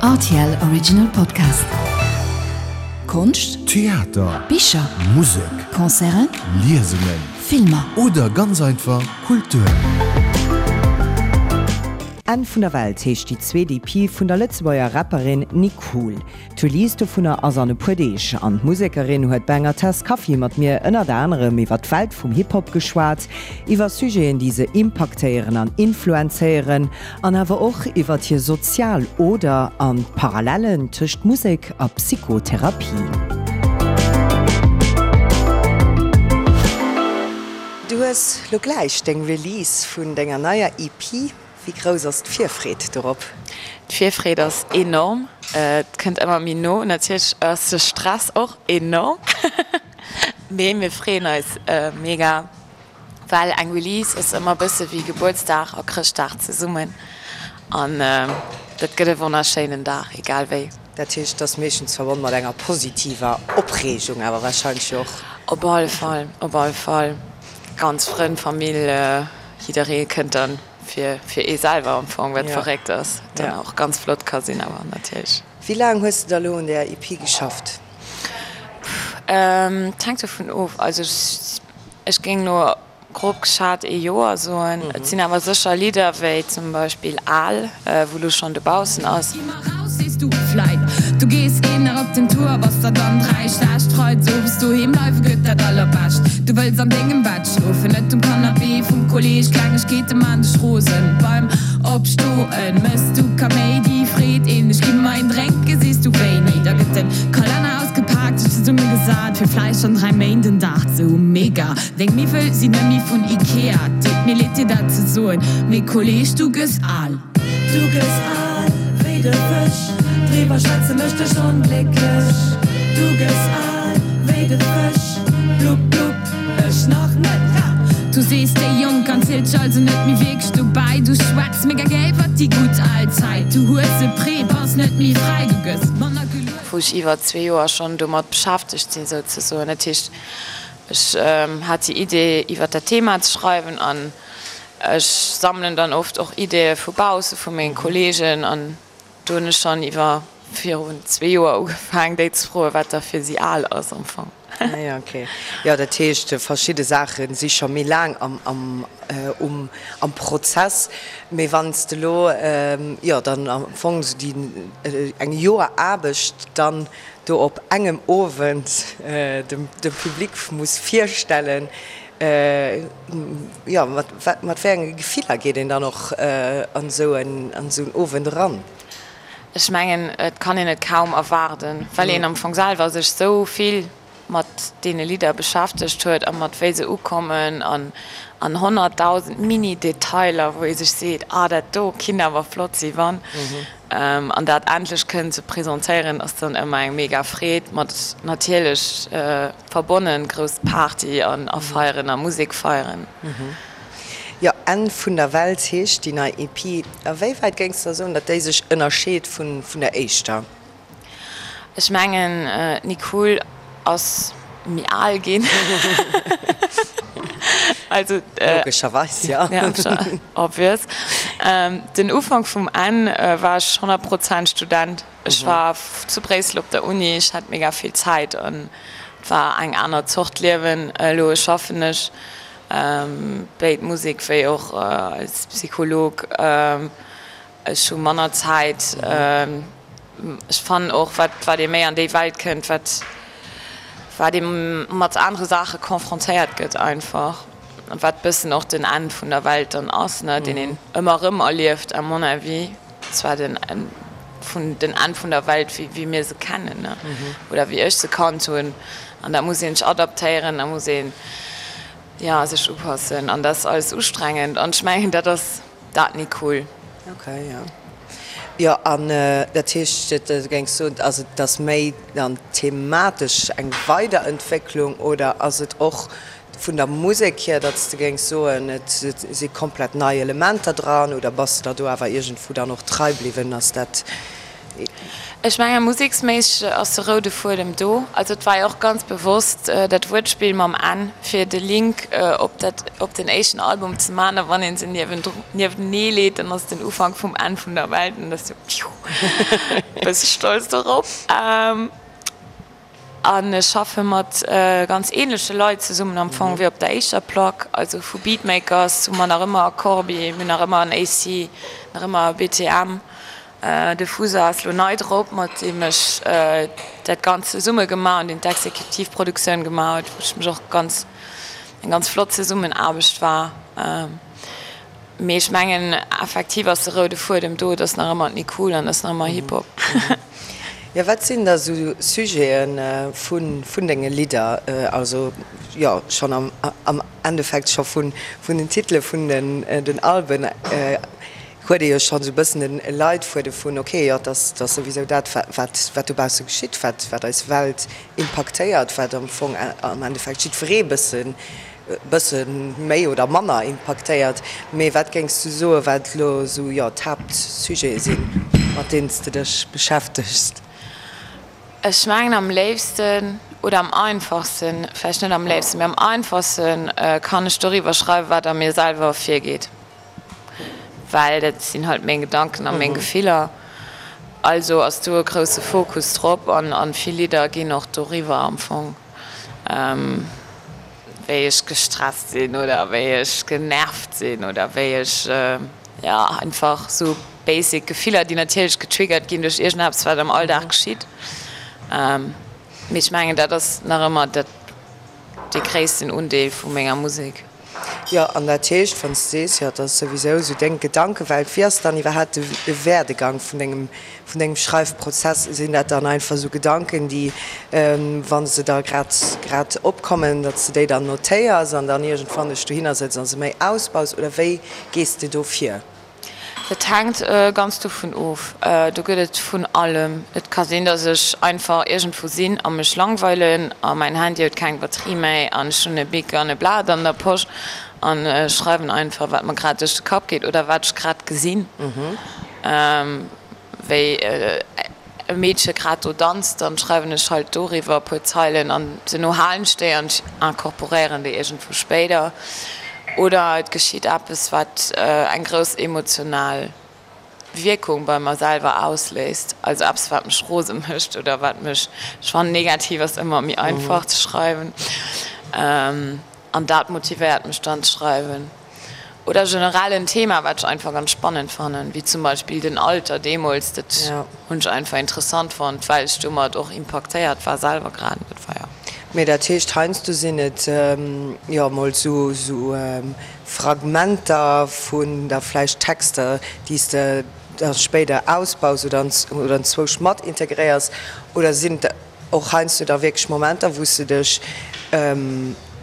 Rtl Original Podcast. Konscht, Theater, Bicher, Musek, Concerten, Liesungen Filmer. Oder ganz einfach Kultur. Enn vun der Welt heescht déi zweet EP vun der Lëtzebuerger Rapperin Nicool. D'Release dovunner ass an e puer Deeg an d'Musekerin huet bei enger Tass Kaffi mat mir ënnert anerem iwwer d'Welt vum Hip-Hop geschwat, iwwer Sujeten déi se impaktéieren an influenzéieren an awer och iwwer hir sozial Oder an d'Parallellen tëscht Musek a Psychotherapie. Du hues lo gläich deng Release vun denger neier EP. Wéi grouss ass d'Virfreed dorop? D'Virfreed ass enorm. Et kënnt ëmmer méi no. Natierlech ass de Stress och enorm, mee mir freeën eis mega, well eng Release ass ëmmer e bësse wéi Gebuertsdag a Chrëschtdag zesummen an dat gëtt e wonnerschéinen Dag, egal wéi. Dat heescht, et ass meeschtens verbonn mat enger positiver Opreegung awer warscheinlech jo och. Op alle Fall, op alle Fall. Ganz Frënn, Famill, Jidderee kënnt dann fir fir ee selwer am Fong, wat verréckt ass, dann och ganz flott ka sinn awer natierlech. Wéi laang hues de da lo un där EP geschafft? Et hänkt dovun of, also ech géing lo grob geschat ee Joer soen. Et sinn awer sécher Lidder wéi zum Beispill Al, wou lo schonn dobaussen ass. Gi mer raus, sees du vläit. Du gees een nach op den Tour, bass der dann 3 schlecht. Freides owes doheem bleiwe gëtt dat allerbescht. Du wëlls an dengem Bett schlofen, net um Canapé vum Kolleg. Klengegkeete maan dech rosen, beim Opstoen mëss du Kaméidi. Freet een dech, gi mer een drénken, sees du wéini. Da gëtt den Kalenner ausgepaakt, sech zesumme gesat fir vläicht an 3 Méint en Dag ze hu. Mega! Deng Miwwel sinn net méi vun Ikea. Deet mir leed dir dat ze soen, mee Kolleg, du gëss al. Du gëss al wéi de Fësch, driwwer schwätze mécht dech onglécklech. Du gëss al wéi de Fësch, blupp blupp, ech nach net, ha! Du sees déi Jonk an zielt dech also net méi wierklech dobäi. Du schwätz mega gär iwwert déi gutt al Zäit. Du hues e Prêt, bass net méi fräi, du gëss manner gelueft. Wou ech iwwer zwee Joer schonn domat beschäftegt sinn souzesoen. Dat heescht, ech hat déi Idee iwwer dat Thema ze schreiwen an Ech sammelen dann oft och Ideeë vu bausse, vu menge Kolleegen an do hunn ech schonn iwwer virun zwee Joer ugefaang déi ze froen, wat da fir si al ass am Fong. Ah jo, okay. Jo, dat heescht verschidde Saache si scho méi laang am am um am Prozess. Mee wann s de elo jo dann am Fong esou déi eng Joer Aarbecht dann do op engem Owend dem dem Public muss virstellen, Jo, mat mat wéi enge Gefiller geet een dann och an esou en an esou en Owend eran? Ech mengen, et kann een et kaum erwaarden, well een am Fong selwer sech esou vill mat deene Lidder beschäftegt huet a mat wéi se ukommen an an 100.000 Mini-Detailer, wou ee sech seet, ah dat do kinnt awer flott si wann. An dat endlech kënnen ze presentéieren ass dann ëmmer eng mega Freed, mat natierlech Verbonnen, grouss Party an a feieren a Musek feieren. Jo, Enn vun der Welt heescht déi nei EP. A wéi wäit géings de da soen, datt déi sech ënnerscheet vun der éischter? Ech mengen, d'Nicole ass méi al ginn. Also. Logescherweis, jo. Obvious. Den Ufank vum Enn war ech 100 Prozent Student. Ech war zu Bréissel op der Uni, ech hat mega vill Zäit an et war eng aner Zort Liewen. Elo schaffen ech béid Musek wéi och als Psycholog. Ech hu manner Zäit. Ech fannen och, wat wat ee méi an déi Welt kënnt, wat wat ee mat anere Saache confrontéiert gëtt einfach. Wat bëssen och den Enn vun der Welt dann ass, ne, deen een ëmmer erëm erlieft à mon avis. Zwar den Enn vun den Enn vun der Welt wéi wéi mir se kennen, ne, oder wéi ech se kannt hunn. An da muss een sech adaptéieren, da muss een, jo, sech upassen an dat ass alles ustrengend an ech mengen dat ass dat Nicole. Ok, jo. Jo, an dat heescht, du géings soen, also et ass méi dann thematesch eng Weiderentwécklung oder ass et och Vun der Musek hier, datt s de géings soen, et si komplett nei Elementer dran, oder bass de der do awer iergendwou dann och trei bliwwen? Ass dat. Ech menge museksméisseg ass de roude Fuedem do. Also et war jo och ganz bewosst dat Wuertspill mam Enn, fir de Link op dat, op den éischten Album ze man. A wann ee se niewtenee leet, dann ass et den Ufank vum Enn vun der Welt. An dat ass jo, pfiuh, e bësse stolz dorop. An ech schaffe mat ganz ähnleche Leit zesummen am Fong wéi op der éischter Plack. Also vu Beatmakers hu mer nach ëmmer e Corbi, mir hunn nach ëmmer en AC, nach ëmmer e BTM. De Fusa ass lo nei drop, mat deem ech dat Ganzt zesumme gemaach hunn, deen d'Exekutiv Produktioun gemaach huet, wou ech mech och ganz, eng ganz flott Zesummenaarbecht war. Mee ech mengen effektiv ass de roude Fuedem do, et ass nach ëmmer d'Nicool an et ass nach ëmmer Hip-Hop. Jo, wat sinn da sou Sujete vun denge Lidder? Also jo, schonn am Endeffekt scho vun den Titele vun den Alben huet ee jo schonn esou e bëssen den Leitfuede vun, ok, jo, et ass souwisou dat, wat dobausse geschitt, wat eis Welt impaktéiert, wat am Fong am Endeffekt jiddweree bëssen bësse méi oder manner impaktéiert. Mee wat géings du soen, wat elo esou, jo, d'Haaptsujete sinn, mat deenen s de dech beschäftegs? Ech mengen am léifsten oder am einfachsten, vläicht net am léifsten, mee am einfachsten kann ech doriwwer schreiwen, wat a mir selwer virgeet, well dat sinn halt meng Gedanken a meng Gefiller. Also ass do e grousse Fokus drop an vill Lidder ginn och doriwwer am Fong. Wéi ech gestresst sinn oder wéi ech genervt sinn oder wéi ech, jo, einfach sou basic Gefiller, déi natierlech getriggert ginn duerch iergendeppes, wat am Alldag geschitt. Mee ech mengen, dat ass nach ëmmer dat, dee gréissten Undeel vu menger Musek. Jo, an dat heescht, wann s de sees, jo, et ass souwisou esou deng Gedankewelt, wéi ass dann iwwerhaapt de Werdegang vun dengem, vun dengem Schreifprozess? Sinn dat dann einfach esou Gedanken, déi, wa se da grad, grad opkommen, datt s de déi dann notéiers an dann iergendwann dech dohinner sëtz a se méi ausbaus, oder wéi gees de do vir? Dat hänkt ganz dovun of. Do gëtt et vun allem. Et ka sinn, datt ech einfach iergendwou sinn a mech langweilen a mäin Handy huet keng Batterie méi an ech hunn e Bic an e Blat an der Posch an ech schreiwen einfach, wat mer grad duerch de Kapp geet oder wat ech grad gesinn. Wéi e Meedche grad do danzt, dann schreiwen ech halt doriwwer e puer Zeilen an duerno halen ech déi an ech incorporéieren déi iergendwou spéider. Oder et geschitt eppes, wat eng grouss emotional Wierkung bei mer selwer ausléist, also eppes, wat mech rose mécht oder wat mech, ech fannen negativ ass ëmmer méi einfach ze schreiwen, an dat motivéiert mech dann ze schreiwen. Oder generell en Thema, wat ech einfach ganz spannend fannen, wéi zum Beispill den Alter deemools, dat hunn ech einfach interessant fonnt, well ech domat och impaktéiert war selwer grad. Dat war jo. Mee dat heescht, heiansdo sinn et jo emol sou Fragmenter vun da vläicht Texter, déi s de da spéider ausbaus oder anzwousch mat integréiers, oder sinn et Och heiansdo da wierklech Momenter, wou s de dech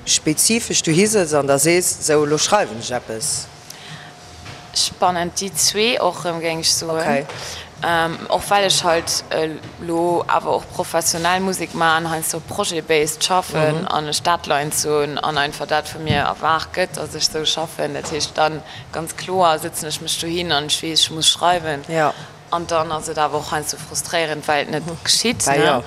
spezifesch dohi sëtz an da sees, sou elo schreiwen ech eppes. Spannend, déi zwee och erëm, géing ech soen. Och well ech halt elo awer och professionell Musek maachen, heiansdo projet-based schaffen an ech Deadlines hunn an einfach dat vu mir erwaart gëtt, datt ech sou schaffen. Dat heescht dann ganz kloer sëtzen ech mech dohin an ech weess, ech muss schreiwen. An dann ass et awer och heiansdo frustréierend, well et net geschitt. Bah jo.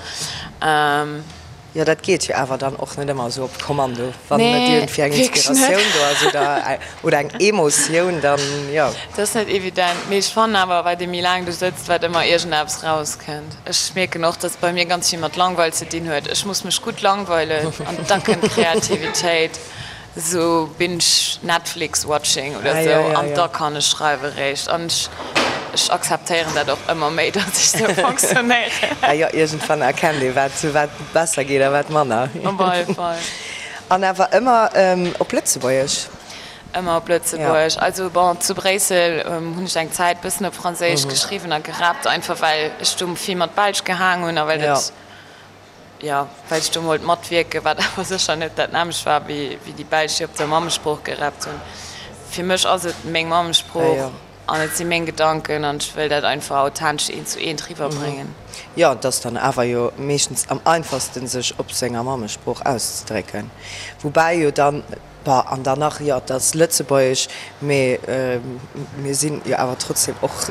Jo, dat geet jo awer dann och net ëmmer esou op Kommando, wann net iergendwéi eng Inspiratioun do ass oder, oder eng Emotioun, dann jo. Dat ass net evident. Mee ech fannen awer, wat ee méi laang do sëtzt, wat ëmmer iergendeppes rauskënnt. Ech mierken och, dass et bei mir ganz vill mat Langweil ze dinn huet. Ech muss mech gutt langweilen an da kënnt d'Kreativitéit. Sou binge Netflix watching oder sou an da kann ech schreiwe réischt. An ech ech akzeptéieren dat och ëmmer méi, datt ech sou fonctionnéieren. Ah jo, iergendwann erkennt ee wat wat besser geet a wat manner. Op alle Fall. An awer ëmmer op Lëtzebuergesch? Ëmmer op Lëtzebuergesch. Also bon, zu Bréissel hunn ech eng Zäit bëssen op Franséisch geschriwwen a gerappt, einfach well ech do vill mat Belsch gehaang hunn a well dat Jo, well ech do wollt matwierken, wat awer sécher net dat nämmlecht war, wéi déi Belsch, déi op der Mammesprooch gerappt hunn. Fir mech ass et meng Mammesprooch an et si meng Gedanken an ech wëll dat einfach authentesch eent zu eent riwwerbréngen. Jo, et ass dann awer jo meeschtens am einfachsten, sech op senger Mammesprooch auszedrécken. Woubäi jo dann, bon, an dann nach, jo, et ass Lëtzebuergesch, mee mir sinn jo awer trotzdem och.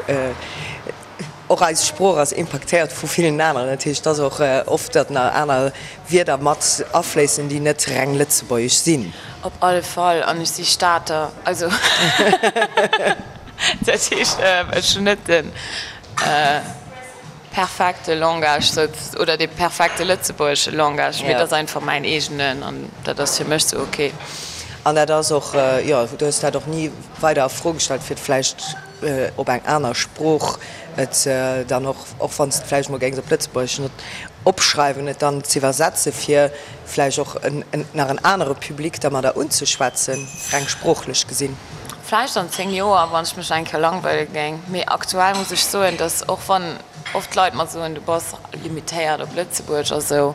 Och eis Sprooch ass impaktéiert vu villen aneren. Dat heescht, et ass och oft, datt nach aner Wierder mat afléissen, déi net reng lëtzebuergesch sinn. Op alle Fall. An ech si Stater. Also dat heescht, ech hunn net de perfekte Langage oder dee perfekte lëtzebuergesche Langage, mee et ass einfach mäin eegenen an dat ass fir mech sou ok. An dat ass och, jo, du hues dat och ni weider a Fro gestallt, fir et vläicht op eng aner Sprooch et dann och, och wann s de et vläicht emol géings op Lëtzebuergesch net opschreiwen, et dann z'iwwersetze fir vläicht och nach en anere Public dermadder unzeschwätzen, reng sproochlech gesinn. Vläicht an 10 Joer, wann ech mech eng Kéier langweile géing. Mee aktuell muss ech soen, dass, och wann oft Leit mer soen, du bass limitéiert op Lëtzebuerg a sou,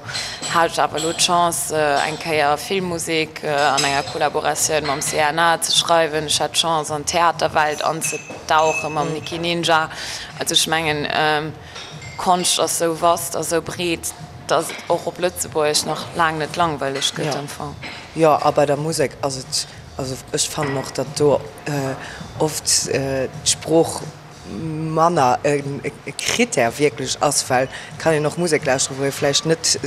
hat ech awer elo d'Chance, eng Kéier Filmmusek an enger Kollaboratioun mam CNA ze schreiwen. Ech hat d'Chance, an d'Theaterwelt anzedauche mam Nikki Ninja. Also ech mengen, Konscht ass sou vast a sou breet, dass et och op Lëtzebuergesch nach laang net langweileg gëtt am Fong. Jo, a bei der Musek ass et, also ech fannen och, datt do oft d'Sprooch manner e Critère wierklech ass, well et kann een och Musek lauschteren, wou ee vläicht net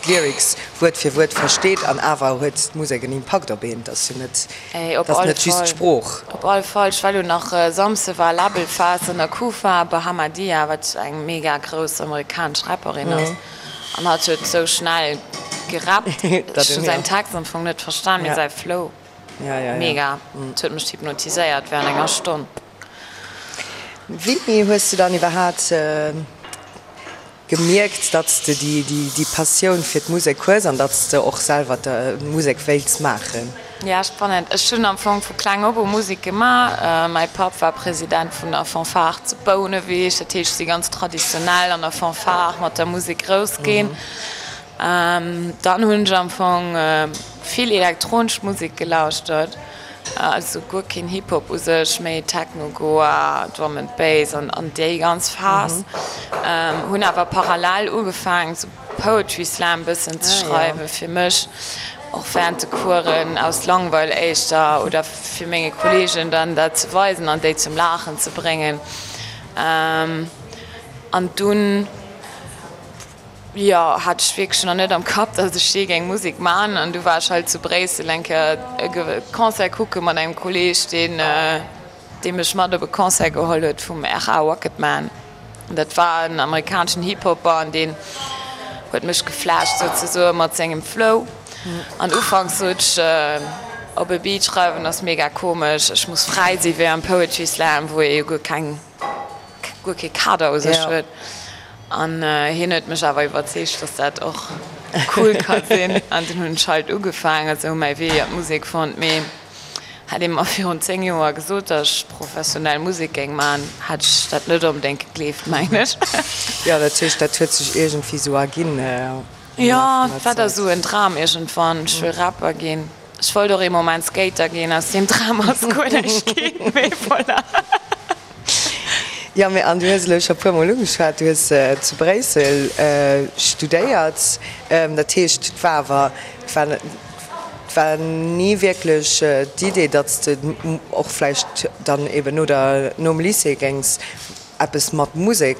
d'Lyrics Wuert fir Wuert versteet an awer huet d'Musek en Impakt op een. Et ass jo net, et ass net just d'Sprooch. Op all Fall. Ech war elo nach Samsde war Labelfest an der Kufa, Bahamadia, wat eng mega grouss amerikanesch Rapperin ass, an hatt huet sou schnell gerappt, ech hunn säin Text am Fong net verstan, mee säi Flow, mega, et huet mech hypnotiséiert während enger Stonn. Wéini hues du dann iwwerhaat gemierkt, datt s de déi Passioun fir d'Musek hues an datt s de och selwer Musek wéilts maachen? Ja, spannend. Ech hunn am Fong vu kleng op u Musek gemaach. Mäi Papp war President vun der Fanfare zu Bouneweg, dat heescht, ech si ganz traditionell an der Fanfare mat der Musek grouss ginn. Dann hunn ech am Fong vill elektronesch Musek gelauschtert, also guer keen Hip-Hop u sech, méi Techno, Goa, Drum and Bass an déi ganz Phas. Hunn awer parallel ugefaangen sou Poetry Slam bëssen ze schreiwen fir mech, och während de Coursen, aus Langweil éischter oder fir menge Kollegen dann dat ze weisen an déi zum Laachen ze bréngen. An dunn. Jo, hat ech wierklech nach net am Kapp, dass ech jee géing Musek man. An du war ech halt zu Bréissel eng Kéier e Concert kucke mat engem Kolleeg, deen, dee mech mat op e Concert geholl huet vum RA Rocketman. An dat war en amerikaneschen Hip-Hopper an deen huet mech geflasht souzesoe mat sengem Flow. An ufanks sot ech, op e Beat schreiwen ass mega komesch, ech muss fräi si wéi am Poetry Slam, wou ee jo guer keng. guer kee Kader u sech huet. An hien huet mech awer iwwerzeegt, dass dat och cool ka sinn. An dunn hunn ech halt ugefaangen, esou mäi Wee an d'Musek fonnt. Mee hätt ee mer virun 10 Joer gesot, dass ech professionell Musek géing maachen, hätt ech dat net onbedéngt gegleeft, mengen ech. Jo, dat heescht, dat huet sech iergendwéi esou erginn am Laf vun der Zäit? Jo, et war da esou en Dram iergendwann, ech wëll Rapper ginn. Ech wollt och ee Moment Skater ginn, aus deem Dram ass guer näischt ginn, mee voilà. Jo, mee an du hues elo scho puer mol ugeschwat, du hues zu Bréissel studéiert. Dat heescht, et war awer, et war, et war ni wierklech d'Idee, datt s de och vläicht dann eben no der, nom Lycée géings eppes mat Musek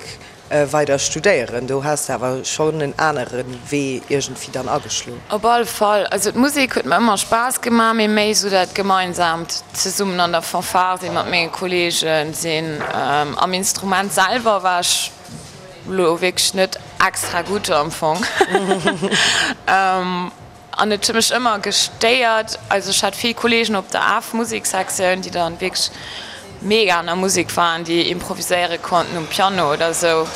Weider studéieren, do has de awer schonn en anere Wee iergendwéi dann ageschloen. Op alle Fall. Also d'Musek huet mer ëmmer Spaass gemaach, mee méi esou dat gemeinsaamt zesummen an der Fanfare sinn, mat menge Kolleegen sinn. Am Instrument selwer war ech elo wierklech net extra gutt am Fong. An et huet mech ëmmer gestéiert, also ech hat vill Kollegen op der AF-Musiksektioun, déi dann wierklech mega an der Musek waren, déi improviséiere konnten um Piano oder esou,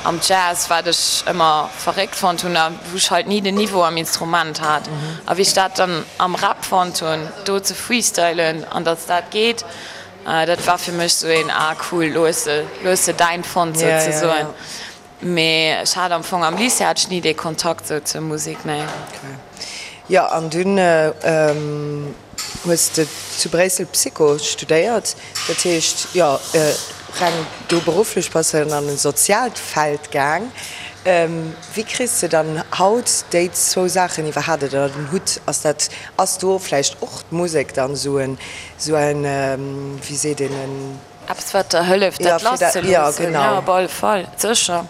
am Jazz, wat ech ëmmer verréckt fonnt hunn a wou ech halt ni den Niveau am Instrument hat. A wéi ech dat dann am Rap fonnt hunn, do ze freestylen an datt dat geet, dat war fir mech esou een, ah cool, lo hues de, lo hues de däin fonnt souzesoen. Mee ech hat am Fong am Lycée hat ech ni dee Kontakt sou zur Musek, nee. Okay. Jo, an dunn hues de zu Bréissel Psycho studéiert, dat heescht, jo, reng do berufflech bass de dann an e soziaalt Feld gaang. Wéi kriss de dann haut déi zwou Saachen iwwerhaapt ënner den Hutt? Ass dat, ass do vläicht och d'Musek dann esou en, esou en, wéi seet een, en. Eppes wat der hëlleft dat lasszeloossen? Jo, op alle Fall, sécher.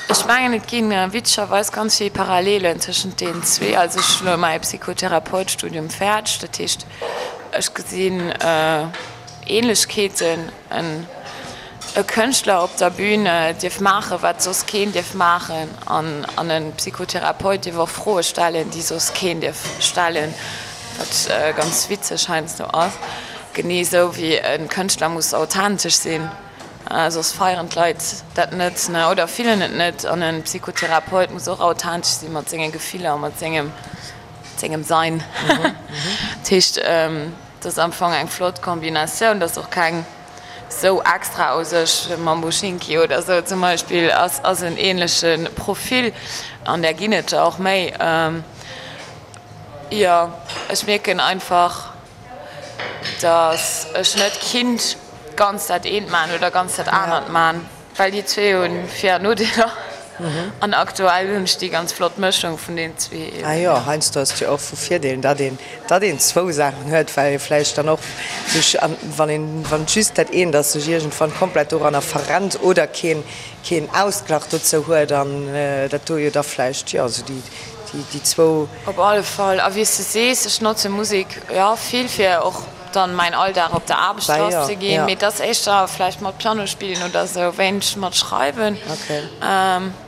Ech mengen et ginn witzegerweis ganz vill Parallelen tëschent deenen zwee. Also ech hunn elo mäi Psychotherapeutstudium fäerdeg, dat heescht ech gesinn Ähnlechkeeten. E Kënschtler op der Bühn dierf maachen, wat soss keen dierf maachen an e Psychotherapeut dierf och Froe stellen, déi soss keen dierf stellen, wat ganz witzeg heiansdo ass. Genee esou wéi e Kënschtler muss authentesch sinn, soss feieren d'Leit dat net oder fillen et net. An e Psychotherapeut muss och authentesch si mat senge Gefiller a mat sengem Sein. Dat heescht, et ass am Fong eng flott Kombinatioun, et ass och keng sou extra u sech. Mambo Schinki oder sou zum Beispill ass en ähnleche Profil an där ginn et der och méi. Jo, ech mierken einfach, datt ech net kinnt ganz dat eent man oder ganz dat anert man. Well déi zwee hunn Vir an Nodeeler an aktuell hunn ech déi ganz flott Mëschung vun den zwee eben. Ah jo, heiansdo ass et jo och vu Virdeel, datt een, datt een zwou Saachen huet, well ee vläicht dann och sech, wann een, wann et just dat eent ass, sech iergendwann komplett doranner verrennt oder keen, keen Ausglach dozou huet an dat do jo da vläicht, jo, esou déi, déi, déi zwou. Op alle Fall. A wéi s de sees, ech notze Musek, jo, vill fir och dann mäin Alldag op der Aarbecht lass ze ginn, mee et ass éischter vläicht mat Piano spillen oder sou, wéineg mat schreiwen.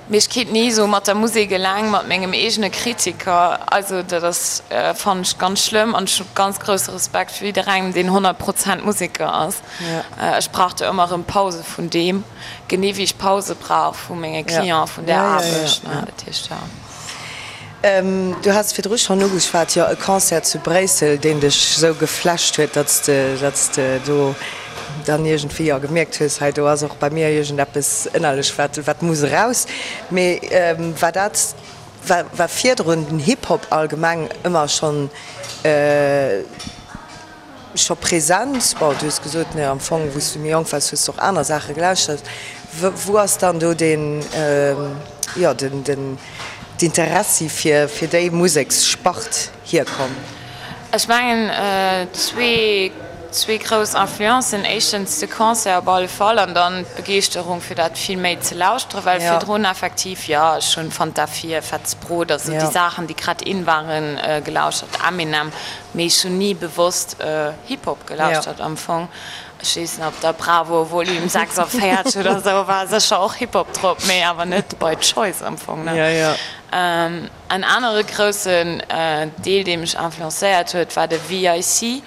Mee ech kéint ni sou mat der Musek eleng, mat mengem eegene Kritiker, also dat ass, fannen ech ganz schlëmm an ech hu ganz grousse Respekt fir jidderengem deen 100 Prozent Museker ass. Ech brauch do ëmmer erëm Pause vun deem, genee wéi ech Pause brauch vu menge Clienten, vun der Aarbecht, dat heescht jo. Du has virdru schonn ugeschwat, jo, e Concert zu Bréissel, deen dech esou geflasht huet, datt s de, datt s de do dann iergendwéi, jo, gemierkt hues, hei do ass och bei mir iergendeppes ënnerlech, wat, wat muss eraus. Mee war dat, war, war virdrun den Hip-Hop allgemeng ëmmer schonn, Scho present? Bon, du hues gesot, ne, am Fong, wou s du méi jonk waars, hues du och aner Saache gelauschtert. Wou ass dann do deen, jo, den, den, d'Interessi fir, fir déi Museksspart hierkomm? Ech mengen, zwee, zwee grouss Influencen. Éischtens de Concert op alle Fall an dann d'Begeeschterung, fir dat vill méi ze lauschteren, well virdrun effektiv, jo, ech hunn Fanta 4, Fettes Brot, also déi Saachen, déi grad in waren, gelauschtert, Eminem. Mee ech hunn ni bewosst Hip Hop gelauschtert am Fong. Ech weess net, op der Bravo Volume 46 oder sou war sécher och Hip Hop drop, mee awer net by choice am Fong, ne? En anere groussen Deel, dee mech influencéiert huet, war de VIC.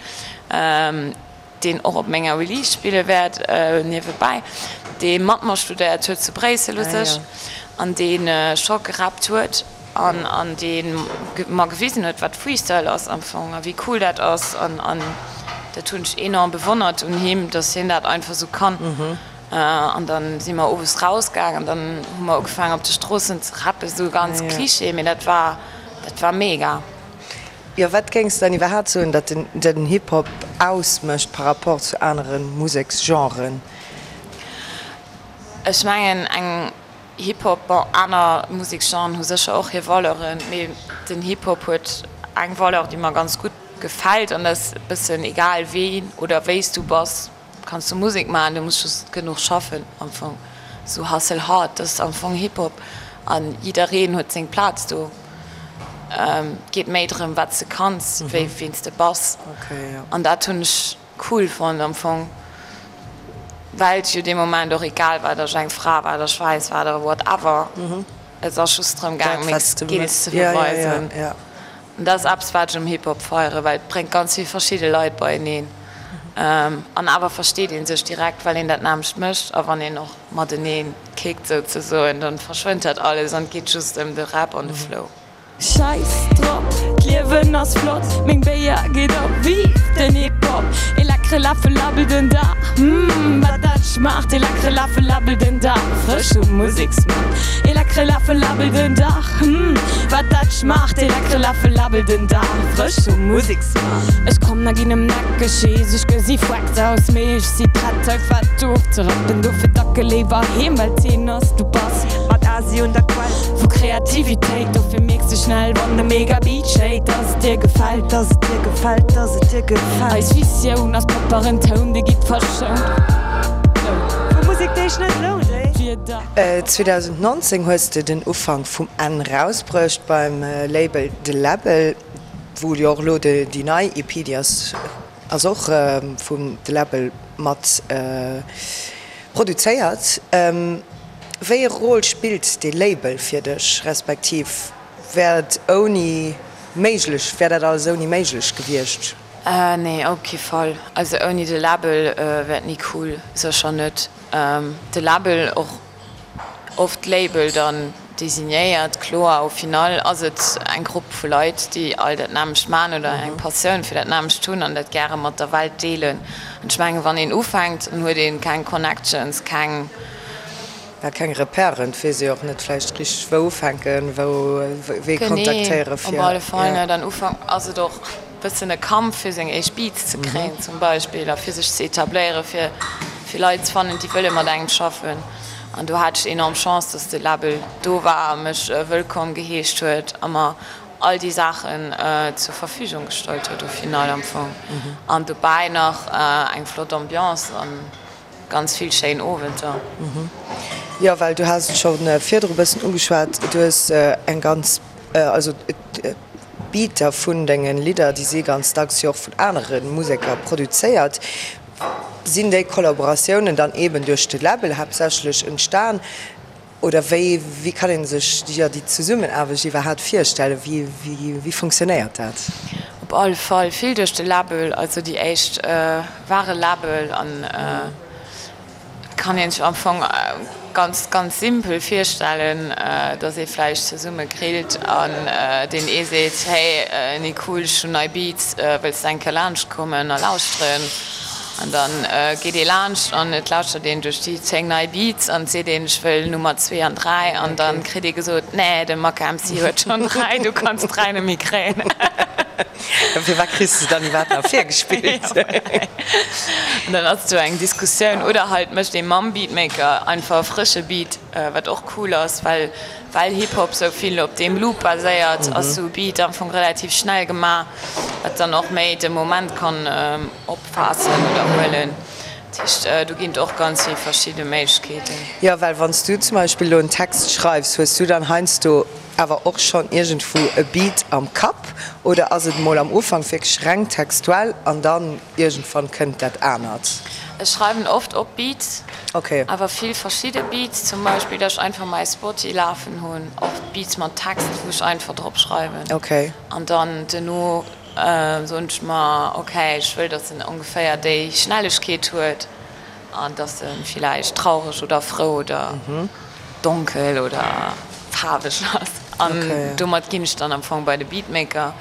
deen och op menger Release spille wäert, niewebäi, dee mat mer studéiert huet zu Bréissel u sech an dee scho gerappt huet an an dee mer gewisen huet, wat Freestyle ass am Fong a wéi cool dat ass. An an dat hunn ech enorm bewonnert un him, datt hien dat einfach esou kann. An da si mer owes rausgaang an dann hu mer ugefaangen op de Stroossen ze rappen, esou ganz Cliché, mee dat war dat war mega. Jo, wat géings de dann iwwerhaapt soen, datt den Hip-Hop ausmécht par rapport zu anere Museksgenren? Ech mengen eng Hip-Hop, bon aner Museksgenren hu sécher och hir Valeuren, mee den Hip-Hop huet eng Valeur, déi mer ganz gutt gefält an dat ass e bëssen egal ween oder wéi s du bass, Kanns du Musek maachen, du muss just genuch schaffen am Fong. Sou hustle hard, dat ass am Fong Hip Hop an jiddereen huet seng Plaz do. Et geet méi drëm wat s de kanns wéi ween s de bass an dat hunn ech cool fonnt am Fong, well et jo dee Moment och egal war, datt ech eng Fra war, datt ech wäiss war oder whatever. Et ass just drëm gaang meng Skills ze beweisen. An dat ass eppes, wat ech um Hip-Hop feieren, well et bréngt ganz vill verschidde Leit beieneen. An awer versteet ee sech direkt, well een dat nämmlecht mécht. A wann een och matenee kickt souzesoen, dann verschwënnt dat alles an et geet just ëm de Rap an de Flow. Scheiss drop, d'Liewen ass flott, meng Béier geet op, vive den Hip-Hop! Ee leckere Läffel Labbel den Dag, mm wat dat schmaacht! Ee leckere Läffel Labbel den Dag, frësch um Museksmaart. Ee leckere Läffel Labbel den Dag, mm wat dat schmaacht! Ee leckere Läffel Labbel den Dag, frësch um Museksmaart. Ech kommen a ginn em neckeg, jees ech gesi fucked aus, mee ech si prett hei fett ofzerappen, dofir dacke léiwer heem, well d'Zeen ass, du bass. quasi un der Quell vu Kreativitéit. Dofir mierks de schnell, wann de Mega-Beat schéit, dass et dir gefält, dass et dir gefält, dass et dir gefält. Eis Visioun ass propperen Toun, dee gitt verschount. Vu Musek, déi sech net lount, ey. 2019 hues de den Ufank vum Enn rausbruecht beim Label De Läbbel, wou jo och elo déi nei EP, déi ass ass och vum De Läbbel mat produzéiert. Wéi e Rôle spillt dee Label fir dech, respektiv wär et ouni méiglech, wär dat alles ouni méiglech gewiescht? Nee, op kee Fall. Also ouni de Label wär et ni cool, sécher net. De Label, och oft Label dann designéiert, kloer, au final ass et eng Grupp vu Leit, déi all dat nämmlecht man oder eng Passioun fir dat nämmlecht hunn an dat gäre mat der Welt deelen. An ech mengen, wann een ufänkt, dann huet ee keng Connections, keng. Ja, keng Repèren, et weess ee och net vläicht richteg wou ufänken, wou wee kontaktéiere fir. Genee, op alle Fall net. An Ufank ass et och bëssen e Kampf fir seng éischt Beats ze kréien zum Beispill a fir sech ze etabléieren, fir fir Leit ze fannen, déi wëlle mat engem schaffen. An do hat ech enorm Chance, dass de Label do war a mech wëllkomm geheescht huet a mer all déi Saachen zur Verfügung gestallt huet au final am Fong. An dobäi nach eng flott Ambiance an ganz vill schéin Owenter. Jo, well du has et scho virdru bëssen ugeschwat, du hues eng ganz, also d'Beater vun denge Lidder, déi si ganz dacks jo och vun anere Museker produzéiert. Sinn déi Kollaboratiounen dann eeben duerch de Label haaptsächlech entstan oder wéi wéi kann ee sech jo déi Zesummenaarbecht iwwerhaapt virstellen? Wéi wéi funktionéiert dat? Op alle Fall vill duerch de Label, also déi éischt ware Label an et kann een sech am Fong ganz ganz simpel virstellen, dass ee vläicht zesumme grillt an deen ee seet, hey Nicole, ech hunn nei Beats, wëlls de eng Kéier laanscht kommen a lauschteren? An da geet ee laanscht an et lauschtert een duerch déi 10 nei Beats an et seet een, ech wëll Nummer zwee an dräi an da kritt ee gesot, nee, de Maka MC huet schonn dräi, du kanns dräi net méi kréien. Firwat kriss de dann iwwerhaapt nach virgespillt? An dann ass do eng Diskussioun. Oder halt mécht ee mam Beatmaker einfach e frësche Beat, wat och cool ass, well well Hip-Hop sou vill op deem Loop baséiert, ass sou e Beat am Fong relativ schnell gemaach, wat dann och méi de Moment kann opfaassen oder huelen. Dat heescht, do ginn et och ganz vill verschidde Méiglechkeeten. Jo, well wann s du zum Beispill elo en Text schreifs, hues du dann heiansdo Awer och schonn iergendwou e Beat am Kapp oder ass et mol am Ufank wierklech reng textuell an dann iergendwann kënnt dat anert? Ech schreiwen oft op Beats, awer vill verschidde Beats, zum Beispill dass ech einfach mäi Spoty lafen hunn, oft Beats mat Text wou ech einfach drop schreiwen an dann duerno soen ech mer ok ech wëll dass en ongeféier déi Schnellegkeet huet. An dass e villäicht traureg oder frou oder donkel oder faarweg ass. An domat ginn ech dann am Fong bei de Beatmaker.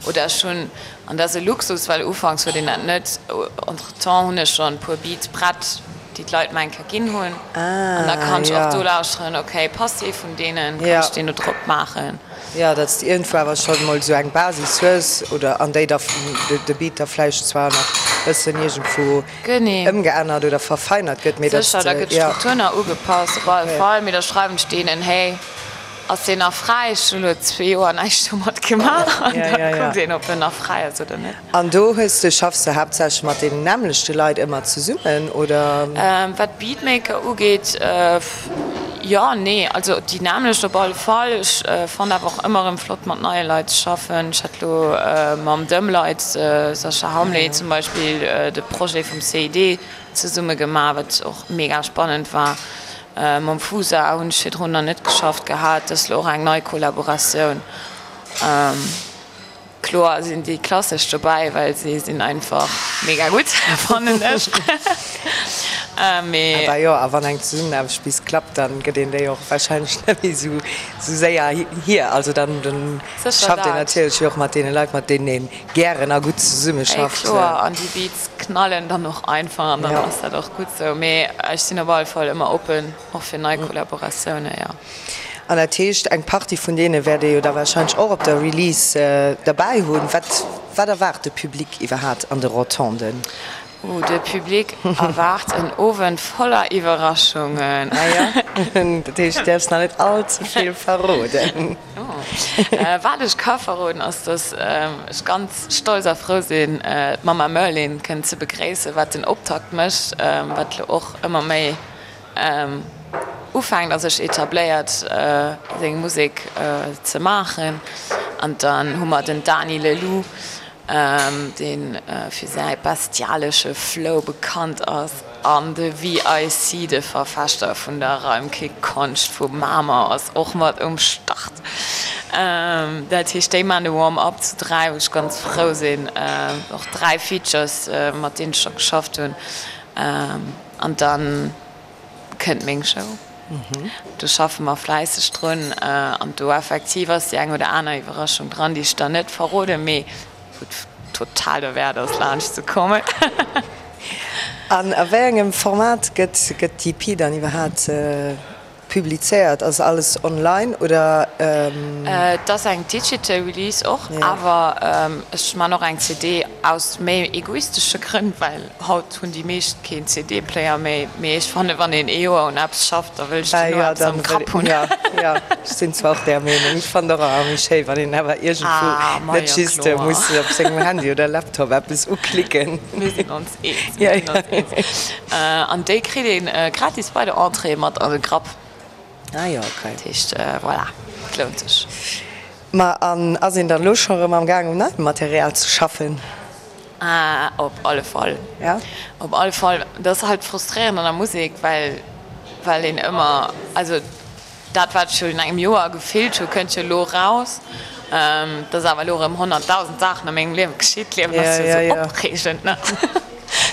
Oder ech hunn, an dat ass e Luxus, well ufanks huet een dat net, entretemps hunn ech schonn e puer Beats prett, déi d'Leit mer eng Kéier ginn hunn. An da kann ech och do lauschteren, ok, passt ee vun deenen, kann ech deen do drop maachen. Jo, datt s de iergendwou awer schonn emol esou eng Basis hues oder an déi da de Beat da vläicht zwar nach bëssen iergendwou ëmgeännert oder verfeinert gëtt, mee datt Sécher, da gëtt d'Struktur nach ugepasst, op alle Fall, mee da schreiwen ech deenen, hey, ass deen nach fräi? Ech hunn elo zwee Joer näischt domat gemaach an da kuckt een, ob en nach fräi ass oder net. An do hues de, schaffs de haaptsächlech mat deenen nämmlechte Leit ëmmer zesummen, oder? Wat d'Beatmaker ugeet, jo, nee, also déi nämmlecht op alle Fall. Ech fannen awer och ëmmer erëm flott mat neie Leit ze schaffen. Ech hat elo mam Dëmleit, Sascha Hamlé zum Beispill, de Projet vum CID zesumme gemaach, wat och mega spannend war. Mam Fusa hunn ech virdrun nach net geschafft gehat, dat ass elo och eng nei Kollaboratioun. Kloer sinn déi klassesch dobäi, well si sinn einfach mega gutt, fannen ech. Mee. Awer jo, a wann eng Zesummenaarbecht bis klappt, dann gëtt een déi och wahrscheinlech net méi esou séier hier. Also dann schafft een natierlech jo och mat deene Leit, mat deenen ee gären a gutt zesummeschafft. Ey kloer, an déi Beats knallen dann och einfach an dann ass dat och gutt sou. Mee ech sinn op alle Fall ëmmer oppen och fir nei Kollaboratioune, jo. An dat heescht, eng Partie vun deene wäert ee jo da warscheinlech och op der Release derbäi hunn. Wat, wat erwaart de Public iwwerhaat an de Rotonden? Oh, de Public erwaart en Owend voller Iwwerraschungen. Ah jo? Dat heescht, du däerfs nach net all ze vill verroden. Wat ech ka verroden, ass, dass ech ganz stolz a frou sinn, d'Mama Merlin kënnen ze begréissen, wat den Optakt mécht, wat elo och ëmmer méi ufänkt a sech etabléiert, seng Musek ze maachen. An dann hu mer den Dany Leloup, dee fir säi bestialesche Flow bekannt ass, an de VIC, de Verfechter vun der Reimkick-Konscht vu Mamer, ass och mat um Start. Dat heescht, déi maachen de Warm-up zu 3, wou ech ganz frou sinn. Och 3 Features, mat deenen ech scho geschafft hunn. An dann kënnt meng Show. Do schaffe mer fläisseg drun an do effektiv ass déi eng oder aner Iwwerraschung dran, déi ech der net verroden, mee wou et total derwäert ass laanscht ze kommen. An a wéi engem Format gëtt d'EP dann iwwerhaapt Publizéiert? Ass alles online oder? Et ass eng digital Release och, awer ech man och eng CD aus méi egoistesche Grënn, well haut hunn déi meescht keen CD-Player méi. Mee ech fannen, wann een ee Joer un eppes schafft, da wëll ech duerno eppes am Grapp hunn. Jo, jo, ech sinn zwar och där Meenung. Ech fannen och ëmmer méi schéi, wann een awer iergendwou net just muss op sengem Handy oder Laptop eppes uklicken. Mir sinn ons Eens, mir sinn ons eens. An déi kritt ee gratis bei der Entrée mat an de Grapp. Ah jo, okay. Dat heescht, voilà, et lount sech. Ma an ass een dann elo scho rëm am Gaang um neiem Material ze schaffen? Ah, op alle Fall. Ja? Op alle Fall. Dat ass halt frustréierend an der Musek, well, well een ëmmer, also Dat wat ech virun engem Joer gefillt hu kënnt jo elo eraus. Et ass awer elo erëm 100.000 Saachen a mengem Liewe geschitt, d'Liewen ass jo esou opreegend, ne?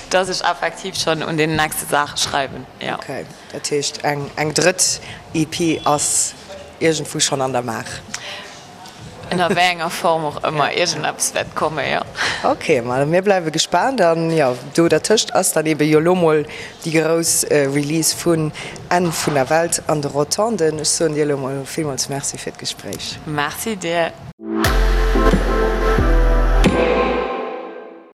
Dass ech effektiv schonn un deenen nächste Saache schreiwen, jo. Ok, dat heescht eng drëtt EP ass iergendwou schonn an der Maach? Ënner wéi enger Form och ëmmer, iergendeppes wäert kommen, jo. Ok, ma mir bleiwe gespaant. An jo, do dertëscht ass dann ebe jo lo mol déi grouss Release vun Enn vun der Welt an de Rotonden. Ech soen dir elo mol villmools Merci fir d'Gespréich. Merci dir.